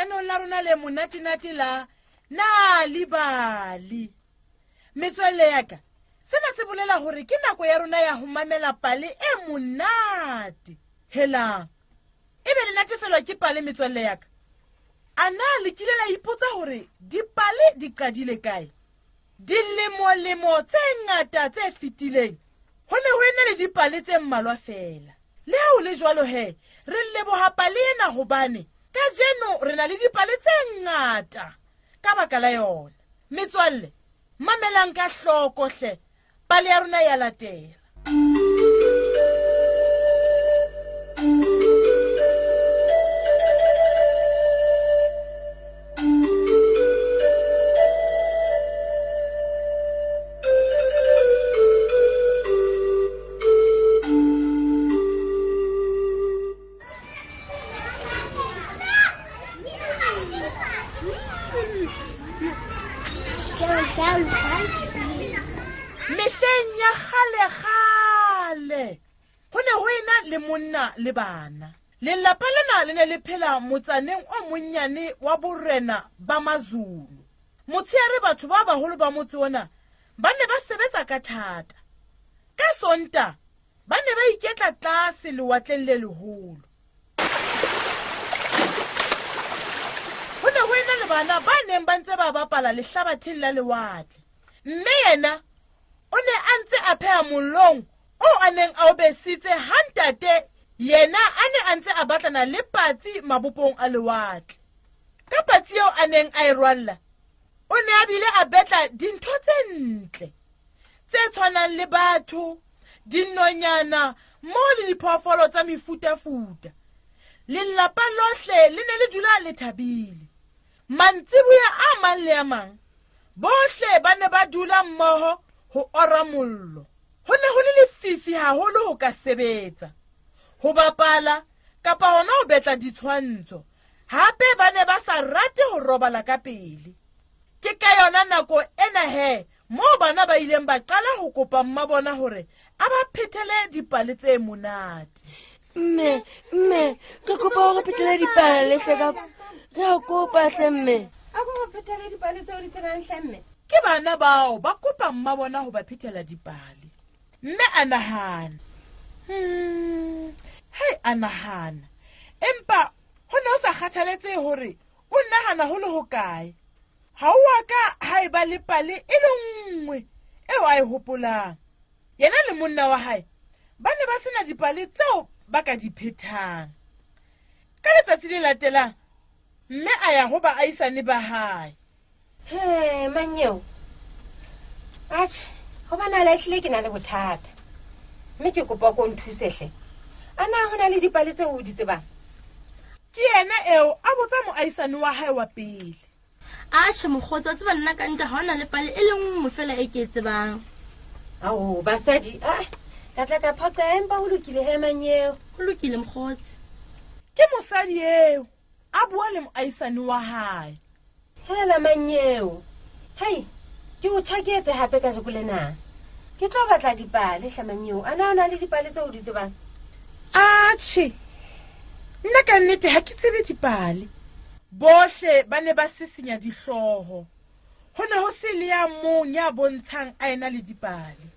Lenaneong la rona le monatenate la Nal'ibali. Metswalle ya ka, sena se bolela hore ke nako ya rona ya ho mamela pale e monate. Helang, ebe le natefelwa ke pale metswalle ya ka? A na le kile la ipotsa hore dipale di qadile kae? Dilemolemo tse ngata tse fetileng ho ne ho ena le dipale tse mmalwa feela. Le ha ho le jwalo he, re leboha pale ena hobane kajeno re na le dipale tse ngata ka baka la yona. Metswalle, mamelang ka hloko hle, pale ya rona ya latela. Mehleng ya kgale-kgale ho ne ho ena le monna le bana. Lelapa lena le ne le phela motsaneng o monnyane wa borena ba Mazulu. Motsheare batho ba baholo ba motse ona ba ne ba sebetsa ka thata. Ka Sonta ba ne ba iketla tlase lewatleng le leholo. Ho ne ho ena le bana ba neng ba ntse ba bapala lehlabatheng la lewatle. Mme yena o ne a ntse a pheha mollong o a neng a o besitse ha ntate yena a ne a ntse a batlana le patsi mabopong a lewatle. Ka patsi eo a neng a e rwalla, o ne a bile a betla dintho tse ntle tse tshwanang le batho, dinonyana mmoho le diphoofolo tsa mefutafuta. Lelapa lohle le ne le dula le thabile. Mantsiboya a mang le a mang, bohle ba ne ba dula mmoho ho ora mollo. Ho ne ho le lefifi haholo ho ka sebetsa, ho bapala kapa hona ho betla ditshwantsho. Hape ba ne ba sa rate ho robala ka pele. Ke ka yona nako ena he moo bana ba ileng ba qala ho kopa mma bona hore a ba phethele dipale tse monate. Mme, mme, re kopa hore phethele dipale hle ka re a kopa hle mme. A ko re phethele dipale tseo di tsebang hle mme. Ke bana bao ba kopa mma bona ho ba phethela dipale. Mme a nahana. Hei, a nahana. Empa ho ne ho sa kgathaletsehe hore o nahana ho le hokae. Ha o a ka ha eba le pale e le nngwe eo a e hopolang. Yena le monna wa hae ba ne ba sena dipale tseo ba ka di phethang. Ka letsatsi le latelang, mme a ya ho baahisane ba hae. He, manyeo. Atjhe, hobane a lahlile ke na le bothata. Mme ke kopa ko nthuse hle. A na ho na le dipale tseo o di tsebang? Ke yena eo a botsa moahisane wa hae wa pele. Atjhe, mokgotsi, wa tseba nna ka nnete ha hona le pale e le nngwe feela e ke e tsebang. Ao, basadi, a ka tla ka phoqa empa ho lokile he manyeo. Ho lokile mokgotsi. Ke mosadi eo a bua le moahisane wa hae. Hela manyeo. Hei, ke o tjhaketse hape kajeko lena. Ke tlo batla dipale hle manyeo. A na o na le dipale tseo o di tsebang? Atjhe, nna ka nnete ha ke tsebe dipale. Bohle ba ne ba sisinya dihlooho. Ho ne ho se le ya mong ya bontshang a ena le dipale.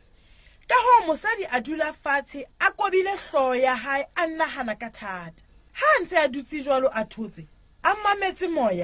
Ka hoo mosadi a dula fatshe a kobile hlooho ya hae a nahana ka thata. Ha a ntse a dutse jwalo a thotse, a mametse moya.